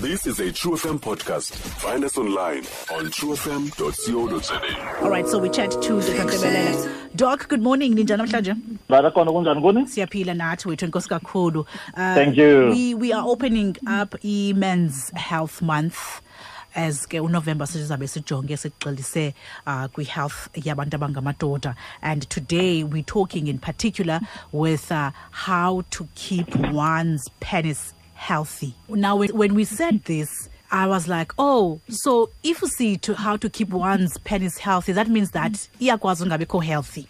This is a True FM podcast. Find us online on truefm.co.za. All right, so we chat to Dr. Tebelele. Doc, good morning. Ninjani namhlanje? Barakhona, kunjani kuni? Siyaphila nathi wethu, enkosi kakhulu. Thank you. We are opening up i-Men's Health Month as ke uNovember sizabe sijonge sigxilise kwi-health yabantu abangamadoda, and today we're talking in particular with how to keep one's penis healthy. Now, when we said this, I was like, oh, so if you see to how to keep one's penis healthy, that means that iyakwazi ungabikho healthy.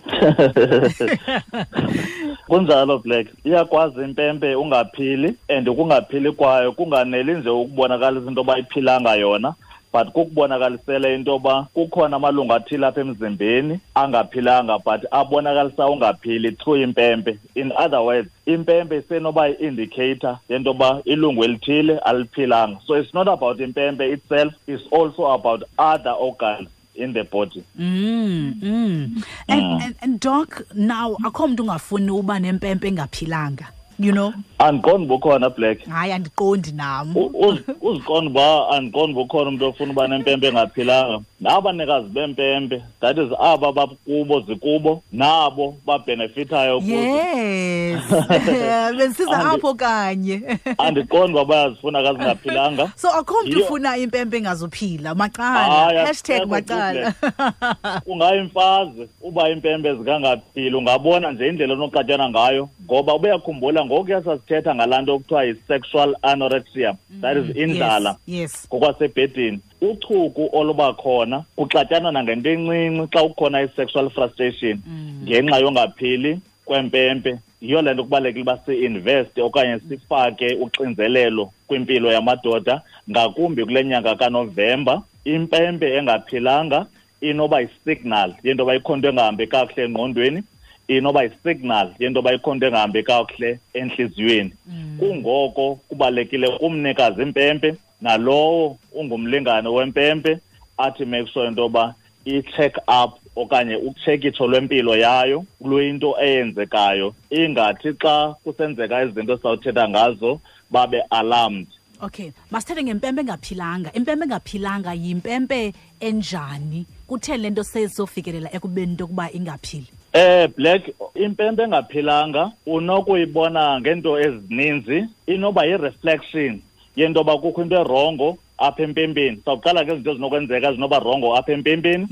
Kunjalo, Black. Iyakwazi impempe ungaphili, and ukungaphili kwayo kunganeli nje ukubonakalisa into yoba iphilanga yona, but kukubonakalisela into yoba kukhona amalungu athile apha emzimbeni angaphilanga, but abonakalisa ungaphili through impempe. In other words, impempe isenoba yi-indicator yento yoba ilungu elithile aliphilanga. So it's not about impempe itself, it's also about other organs in the body. And Doc, now akho mntu ungafuni uba nempempe engaphilanga, you know? Andiqondi bukhona, Black. Hayi, andiqondi nam. Uziqonda uba andiqondi bukhona umntu ofuna uba nempempe engaphilanga. Nabanikazi bempempe, that is aba bakubo zikubo, nabo babenefithayo kuzo. Yes. Besiza apho kanye. Andiqondi uba bayazifuna ka zingaphilanga. So akho mntu ufuna impempe engazuphila. Macala. Hayi, Hashtag akusekho macala. Black. Ungayimfazi uba impempe zikangaphili, ungabona nje indlela onoxatyana ngayo, ngoba ubuyakhumbula ngokuya sasithetha ngalaa nto okuthiwa yi-sexual anorexia, that is indlala. Ngokwasebhedini, uchuku oluba khona kuxatyanwa nangento encinci xa kukhona i-sexual frustration ngenxa yongaphili kwempempe. Yiyo le nto kubalulekile uba si-investe okanye sifake uxinzelelo kwimpilo yamadoda, ngakumbi kule nyanga kaNovemba. Impempe engaphilanga inoba yi-signal yento yoba ikhona into engahambi kakuhle engqondweni, inoba yi-signal yento yoba ikhona into engahambi kakuhle entliziyweni. Kungoko kubalulekile kumnikazi impempe nalowo ungumlingane wempempe athi make sure into yoba i-check up okanye utshekitsho lwempilo yayo luyinto eyenzekayo, ingathi xa kusenzeka izinto esizawuthetha ngazo babe alarmed. Okay, masithethe ngempempe engaphilanga. Impempe engaphilanga yimpempe enjani? Kutheni le nto sezofikelela ekubeni into yokuba ingaphili? Black, impempe engaphilanga unokuyibona ngeento ezininzi. Inoba yi-reflection yento yoba kukho into erongo apha empempeni. Sawuqala ngezinto ezinokwenzeka ezinoba rongo apha empempeni.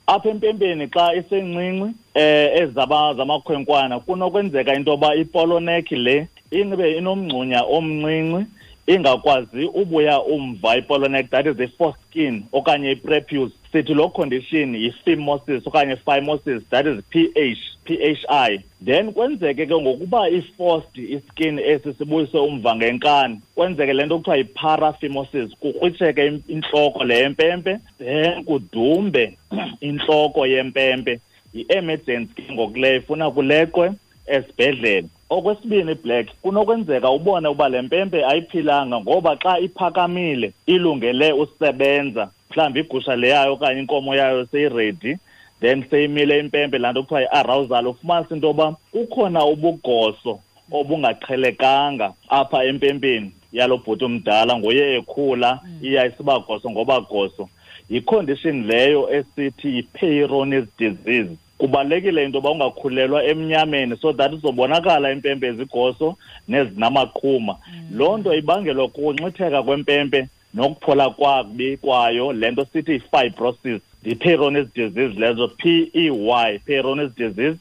Apha empempeni xa isencinci, ezaba zamakhwenkwana, kunokwenzeka into yoba ipolonekhi le inbe inomngxunya omncinci, ingakwazi ubuya umva ipolonekhi, that is the foreskin okanye i-prepuce. Sithi loo condition yi-phimosis okanye phimosis, that is PH, PHI. Then kwenzeke ke ngokuba i-forced iskin esi sibuyise umva ngenkani, kwenzeke le nto kuthiwa yi-paraphimosis, kukrwitsheke intloko le yempempe, then kudumbe intloko yempempe. Yi-emergency ke ngoku leyo, ifuna kuleqwe esibhedlele. Okwesibini, Black, kunokwenzeka ubone uba le mpempe ayiphilanga ngoba xa iphakamile ilungele usebenza, mhlawumbi igusha le yayo okanye inkomo yayo seyiredi, then seyimile impempe, laa nto kuthiwa yi-arousal, ufumanise into yoba kukhona ubugoso obungaqhelekanga apha empempeni yalo bhuti omdala, nguye ekhula iya isiba goso ngoba goso. Yi-condition leyo esithi yi-Peyronie's disease. Kubalulekile into yoba ungakhulelwa emnyameni so that izobonakala impempe ezigoso nezinamaqhuma. Loo nto ibangelwa kukunxitheka kwempempe nokuphola kwakubi kwayo, le nto sithi yi-fibrosis. Yi-Peyronie's disease lezo, PEY, Peyronie's disease.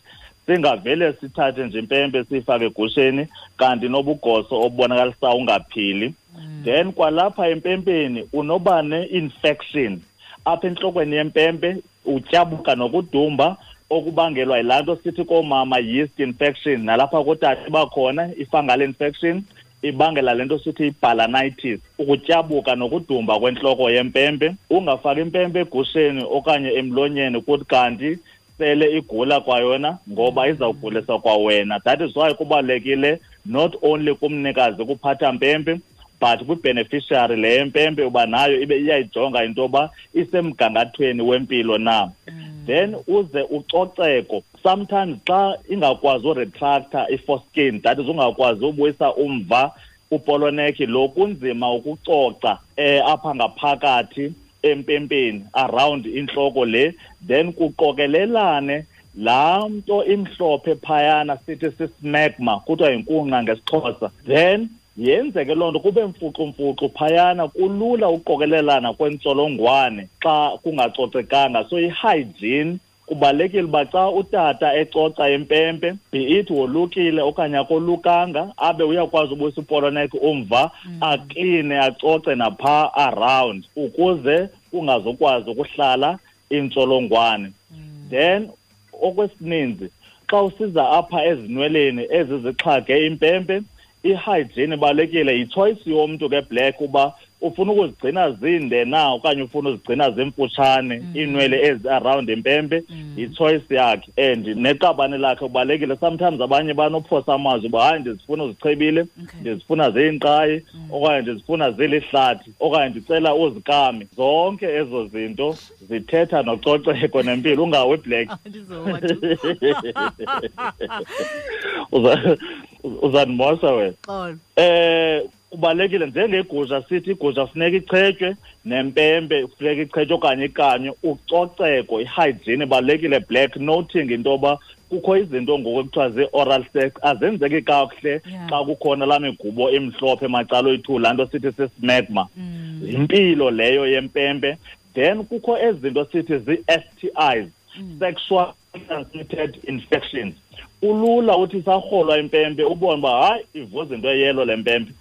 Singavele sithathe nje impempe siyifake egusheni kanti nobugoso obubonakalisa ungaphili. Then kwalapha empempeni unoba ne-infection apha entlokweni yempempe, utyabuka nokudumba okubangelwa yilaa nto sithi koomama yeast infection, nalapha kootata bakhona i-fungal infection ibangela le nto sithi i-balanitis, ukutyabuka nokudumba kwentloko yempempe. Ungafaki impempe egusheni okanye emlonyeni kuthi kanti sele igula kwayona, ngoba izawugulisa kwawena. That is why kubalulekile not only kumnikazi kuphatha mpempe, but kwi-beneficiary le yempempe uba nayo ibe iyayijonga into yoba isemgangathweni wempilo na. Then uze ucoceko. Sometimes xa ingakwazi uretracta i-foreskin, that is ungakwazi ubuyisa umva Upoloneki lo kunzima ukucoca apha ngaphakathi empempeni around inhloko le, then kuqokelelane laa nto imhlophe phayana sithi sismegma, kuthiwa yinkunqa ngesiXhosa. Then yenzeke loo nto kube mfuxumfuxu phayana, kulula uqokelelana kwentsholongwane xa kungacocekanga. So i-hygiene kubalulekile uba xa utata ecoca impempe, be it wolukile okanye akolukanga, abe uyakwazi ubuyisa upoloneki umva, akline, acoce napha around ukuze kungazokwazi ukuhlala intsholongwane. Then okwesininzi xa usiza apha ezinweleni ezizixhage impempe, i-hygiene ibalulekile. Yi-choice yomntu ke Black uba ufuna ukuzigcina zinde na okanye ufuna uzigcina zimfutshane iinwele ezi around impempe, yi-choice yakhe and neqabane lakhe kubalulekile. Sometimes abanye banophosa amazwi uba hayi ndizifuna uzichebile, ndizifuna ziyinkqayi, okanye ndizifuna zilihlathi, okanye ndicela uzikame. Zonke ezo zinto zithetha nococeko nempilo. Ungawi Black. Uzandimosa wena. Kubalulekile njengegusha, sithi igusha funeka ichetywe nempempe funeka ichetywe okanye ikanywe. Ucoceko, i-hygiene ibalulekile Black, noting into yoba kukho izinto ngoku ekuthiwa zii-oral sex azenzeki kakuhle xa kukhona laa migubo emhlophe macala oyi-2, laa nto sithi sismegma. Yimpilo leyo yempempe. Then kukho ezi zinto sithi zii-STIs, sexual transmitted infections. Kulula uthi sarholwa impempe ubone uba hayi ivuza into eyelo le mpempe,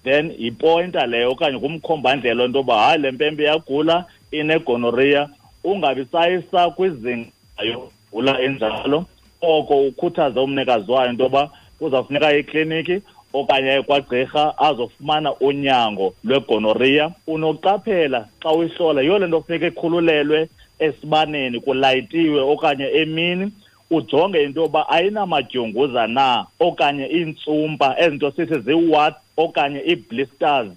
then yipointa leyo okanye kumkhombandlela into yoba hayi le mpempe iyagula, inegonorrhea. Ungabi sayisa kwizinga yogula enjalo, oko ukhuthaze umnikazi wayo into yoba kuzawufuneka ikliniki okanye kwagqirha azofumana unyango lwegonorrhea. Unoqaphela xa uyihlola, yiyo le nto kufuneka ikhululelwe esibaneni kulayitiwe okanye emini, ujonge into yoba ayinamadyunguza na okanye iintsumpa, ezinto sithi zii-warts okanye ii-blisters.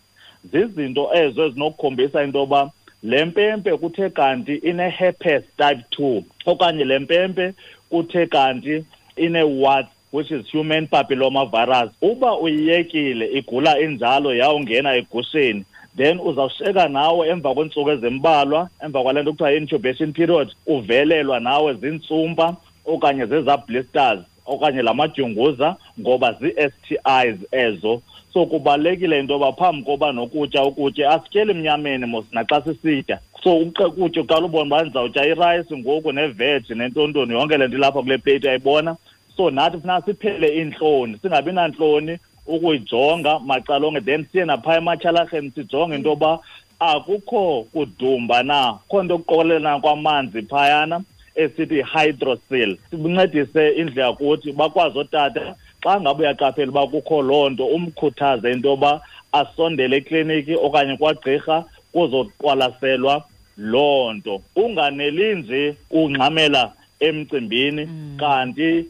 Zizinto ezo ezinokukhombisa into yoba le mpempe kuthe kanti ine-herpes type 2 okanye le mpempe kuthe kanti ine-warts, which is human papilloma virus. Uba uyiyekile igula injalo yawungena egusheni, then uzawusheka nawe emva kweentsuku ezimbalwa, emva kwale nto kuthiwa yi-incubation period, uvelelwa nawe ziintsumpa okanye zezaa blisters okanye la madyunguza, ngoba zii-STIs ezo. So kubalulekile into yoba phambi koba nokutya ukutye, asityeli emnyameni mos naxa sisitya. So ukutya uqala ubone uba ndizawutya irayisi ngoku neveji nentontoni, yonke le nto ilapha kule pleyiti uyayibona. So nathi funeka siphele iintloni, singabi nantloni ukuyijonga macala onke, then siye naphaa ematyhalarheni sijonge into yoba akukho kudumba na, kukho nto kuqokelelana kwamanzi phayana esithi hydrocele. Sibuncedise indlela kuthi bakwazi ootata xa ngabe uyaqaphela uba kukho loo nto, umkhuthaze into yoba asondele ekliniki okanye kwagqirha kuzoqwalaselwa loo nto. Unganeli nje ungxamela emcimbini kanti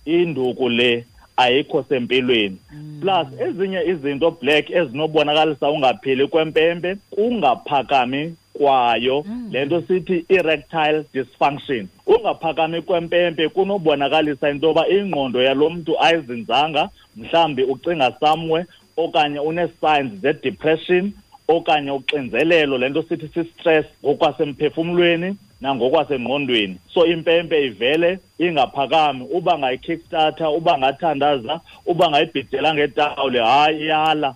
induku le ayikho sempilweni. Plus ezinye izinto Black ezinobonakalisa ungaphili kwempempe, kungaphakami kwayo, le nto sithi erectile dysfunction. Ungaphakami kwempempe kunobonakalisa into yoba ingqondo yalo mntu ayizinzanga, mhlawumbi ucinga somewhere okanye une-signs ze-depression okanye uxinzelelo, le nto sithi si-stress ngokwasemphefumlweni nangokwasengqondweni. So impempe ivele ingaphakami, uba ngayi-kickstarter, uba ngathandaza, uba ngayibhidela ngetawuli, hayi iyala.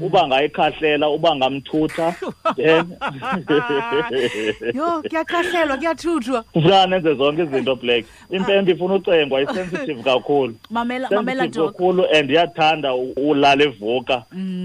Uba ngayikhahlela, uba ngamthutha, then Yho, kuyakhahlelwa, kuyathuthwa. Kufuneka nenze zonke izinto Black. Impempe ifuna ucengwa, i-sensitive kakhulu. Mamela, mamela, Sensitive Doc. kakhulu and iyathanda ulala evuka.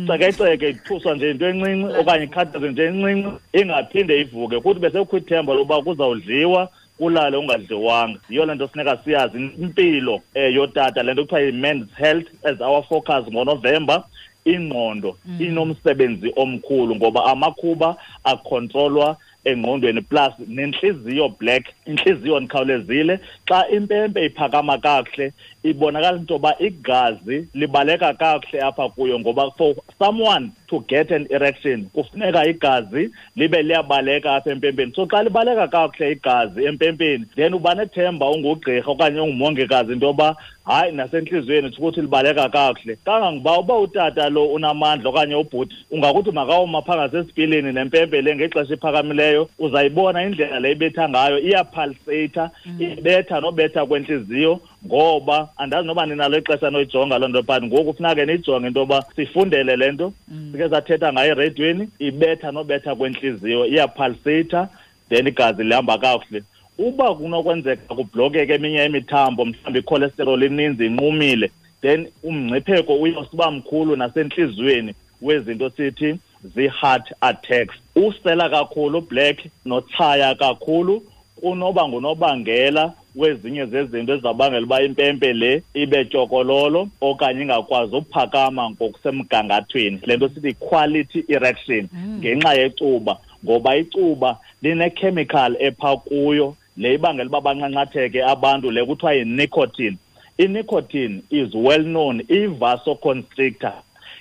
Cekeceke ithuswa nje into encinci okanye ikhathaze nje encinci, ingaphinde ivuke. Kuthi besekukho ithemba lokuba kuzawudliwa, kulale ungadliwanga. Yiyo le nto funeka siyazi impilo yotata, le nto kuthiwa yi-men's health as our focus ngoNovemba. Ingqondo inomsebenzi omkhulu ngoba amakhuba akhontrolwa engqondweni, plus nentliziyo Black, intliziyo ndikhawulezile. Xa impempe iphakama kakuhle ibonakala into yoba igazi libaleka kakuhle apha kuyo, ngoba for someone to get an erection kufuneka igazi libe liyabaleka apha empempeni. So xa libaleka kakuhle igazi empempeni, then uba nethemba ungugqirha okanye ungumongikazi into yoba Hayi, nasentliziyweni ukuthi libaleka kakuhle. Kangangoba uba utata lo unamandla okanye ubhuti, ungakuthi makawuma phaa ngasesipilini nempempe le ngexesha iphakamileyo, uzayibona indlela le ibetha ngayo, iyapulsata, ibetha nobetha kwentliziyo. Ngoba andazi noba ninalo ixesha noyijonga loo nto, but ngoku funeka ke niyijonge into yoba sifundele le nto. Sike sathetha ngayo ereyidweni, ibetha nobetha kwentliziyo, iyapulsata, then igazi lihamba kakuhle. Uba kunokwenzeka kublokeke eminye imithambo, mhlawumbi icholesterol ininzi inqumile, then umngcipheko uyosiba mkhulu nasentliziyweni wezinto sithi zii-heart attacks. Usela kakhulu black notshaya kakhulu kunoba ngunobangela wezinye zezinto ezizawubangela uba impempe le ibe tyokololo okanye ingakwazi uphakama ngokusemgangathweni, le nto sithi quality erection, ngenxa yecuba. Ngoba icuba line-chemical epha kuyo le ibangela uba banqanqatheke abantu, le kuthiwa yi-nicotine. I-nicotine is well known i-vasoconstrictor,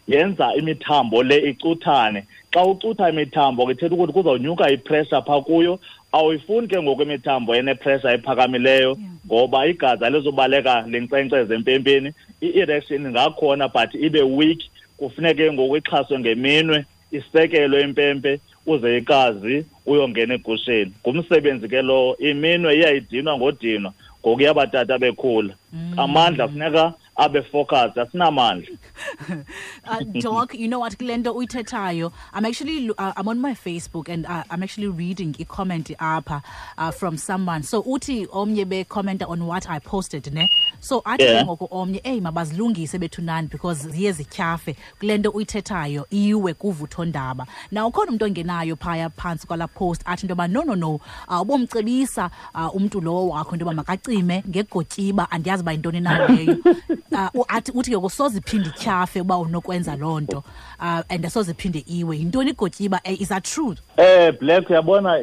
yenza imithambo le icuthane. Xa ucutha imithambo ke ithetha ukuthi kuzawunyuka ipressure phaa kuyo. Awuyifuni ke ngoku imithambo enepressure ephakamileyo, ngoba igazi alizubaleka linkcenkceze empempeni. I-erection ingakhona but ibe weak, kufuneke ngoku ixhaswe ngeminwe, isekelwe impempe uze igazi uyongena egusheni. Ngumsebenzi ke lowo, iminwe iyayidinwa ngodinwa ngokuya abatata bekhula. Amandla funeka abe focus, asinamandla. Doc, you know what, kule nto uyithethayo, I'm on my Facebook and I'm actually reading a comment apha from someone. So uthi omnye be-commenta on what I posted, ne? So athi ke ngoku omnye, eyi, mabazilungise bethunani because ziye zityhafe kule nto uyithethayo, iwe kuvuthondaba. Now ukhona umntu ongenayo phaya phantsi kwala post athi into yoba no, no, no, ubomcebisa umntu lowo wakho into yoba makacime ngegotyiba, andiyazi uba yintoni na leyo. Athi uthi ke soze iphinde ityhafe uba unokwenza loo nto, and asoze iphinde iwe. Yintoni igotyiba? Is that true? Black, uyabona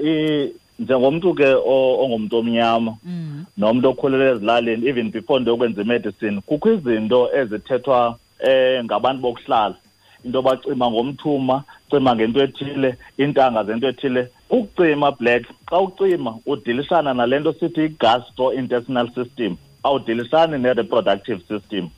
njengomntu ke ongumntu omnyama nomntu okhulele ezilalini, even before ndiyokwenza imedicine, kukho izinto ezithethwa ngabantu bokuhlala, into bacima ngomthuma, cima ngento ethile, iintanga zento ethile. Ukucima black, xa ucima udilishana nale nto sithi i-gastrointestinal system, awudilisani ne-reproductive system.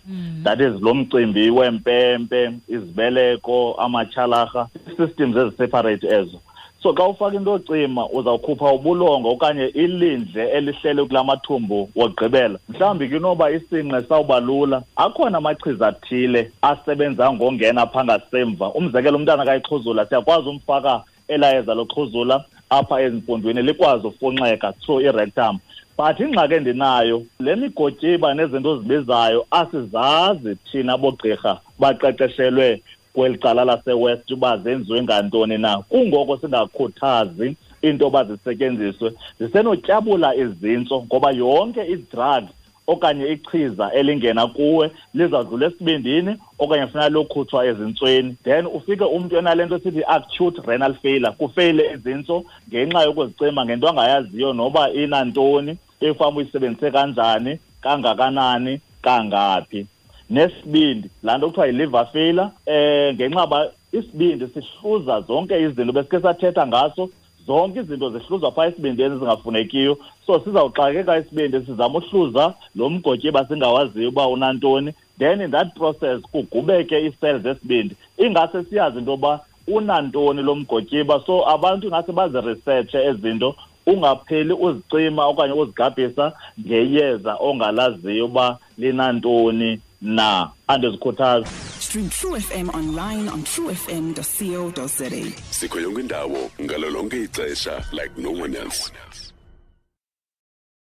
That is lo mcimbi wempempe, izibeleko, amatyhalarha, systems eziseparate ezo. So xa ufaka into ocima uzawukhupha ubulongo okanye ilindle elihlele kula mathumbu wokugqibela. Mhlawumbi ke inoba isinqe sawuba lula. Akhona amachiza athile asebenza ngongena phaa ngasemva. Umzekelo, umntana kayixhuzula, siyakwazi umfaka elayeza loxhuzula apha ezimpondweni likwazi ufunxeka through i-rectum. But ingxaki endinayo, le migotyiba nezinto ozibizayo asizazi thina bogqirha baqeqeshelwe kweli cala laseWest uba zenziwe ngantoni na. Kungoko singakhuthazi into yoba zisetyenziswe. Zisenotyabula izintso ngoba yonke i-drug okanye ichiza elingena kuwe lizawudlula esibindini okanye funeka lokhutshwa ezintsweni. Then ufike umntu enale nto sithi acute renal failure, kufeyile izintso ngenxa yokuzicima ngento angayaziyo noba inantoni, efama uyisebenzise kanjani, kangakanani, kangaphi. Nesibindi, laa nto kuthiwa yi-liver failure, ngenxa ba isibindi sihluza zonke izinto besike sathetha ngaso, zonke izinto zihluzwa phaa esibindini ezingafunekiyo. So sizawuxakeka isibindi sizama uhluza lo mgotyiba singawaziyo uba unantoni, then in that process kugubeke ii-cells zesibindi, ingase siyazi into yoba unantoni lo mgotyiba. So abantu ingase baziresearche ezi zinto, ungapheli uzicima okanye uzigabhisa ngeyeza ongalaziyo uba linantoni na. Andizikhuthazi. Stream True FM online on truefm.co.za. Sikho yonke indawo ngalo lonke ixesha like no one else.